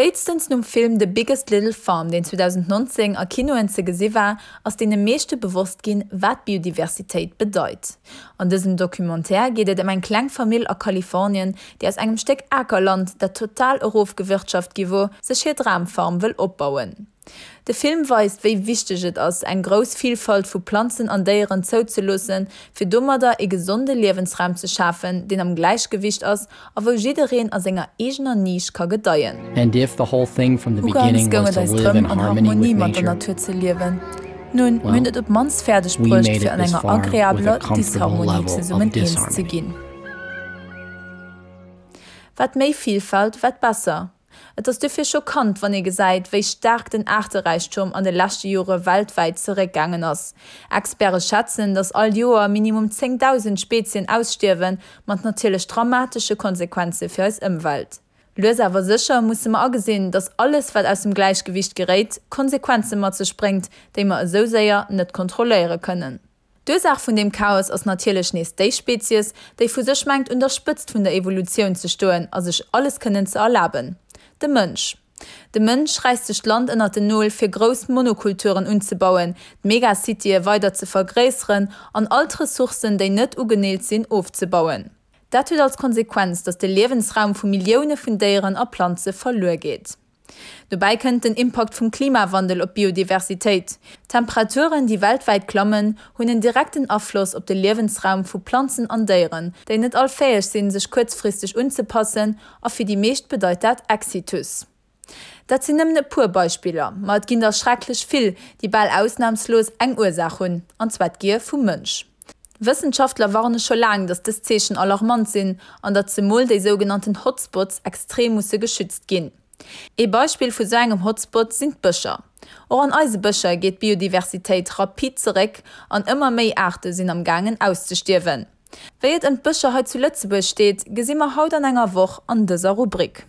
Spéitstens nom Film The Biggest Little Farm, deen 2019 a Kinoen ze gesi war, ass deene meeschte bewosst ginn, wat Biodiversitéit bedeit. An dësem Documentaire geet et ëm eng kleng Famill a Kalifornien, déi aus engem Stéck Akerland, dat total erofgewirtschaft gi wor, sech hir Dramfarm wëll opbauen. De Film weist, wéi wichteg et ass, eng grouss Vilfalt vu Planzen an Déieren zouzeloossen, fir domadder ee gesonde Liewensraum ze schafen, deen am Gläichgewicht ass a wou jiddereen a senger eegener Nisch ka gedeien. Ugangs goung et eis drëm, an Harmonie mat der Natur ze liewen. Nun, mir hunn et op d'mannst fäerdeg bruecht, fir an enger agreabeler Disharmonie zesummen eens ze ginn. Wat méi Vilfalt, wat besser. Et ass dofir schockant, wann ee gesäit, wéi staark den Aarteräichtum an de leschte Jore weltwäit zeréckgaangen ass. Experte schätzen, datt all Joer minimum 10.000 Spezien ausstierwen, mat natierlech dramatesche Konsequenze fir eis Ëmwelt. Lues awer sécher musse mer agesinn, datt alles, wat aus dem Gläichgewiicht geréit, Konsequenze mat sech bréngt, déi mer esou séier net kontrolléiere kënnen. D'Ursaach vun deem Chaos ass natierlech nees déi Spezies, déi vu sech mengt un der Spëtzt vun der Evolutioun ze stoen a sech alles kënnen ze erlaben, de Mënsch. De Mënsch räisst sech d'Land ënnert den Nol fir grouss Monokulturen unzebauen, d'Megacitye weider ze vergréisseren an all d'Ressourcen, déi net ugeneelt sinn, ofzebauen. Dat huet als Konsequenz, datt de Liewensraum vu Millioune vun Déieren a Planze verluer geet. Dobäi kënnt den Impakt vum Klimawandel op d'Biodiversitéit. D'Temperaturen, déi weltwäit klammen, hunn en direkten Afloss op de Liewensraum vu Planzen an Déieren, déi net all fäeg sinn, sech kuerzfristeg unzepassen, a fir déi meescht bedeit dat Exitus. Dat sinn nëmmen e puer Beispiller, ma et ginn der schrecklech vill, déi bal ausnamslos eng Ursaach hunn, an zwar d'Gier vum Mënsch. Wëssenschaftler warne scho laang, datt dës Zeechen alarmant sinn an datt zemol déi sougenannten Hotspots extrem musse geschützt ginn. Ee Beispill vu sou engem Hotspot sinn d'Bëscher. Och an eise Bëscher geet d'Biodiversitéit rapid zeréck an ëmmer méi Aarte sinn am gaangen auszestierwen. Wéi et ëm d'Bëscher hei zu Lëtzebuerg steet, gesi mer haut an enger Woch an dëser Rubrik.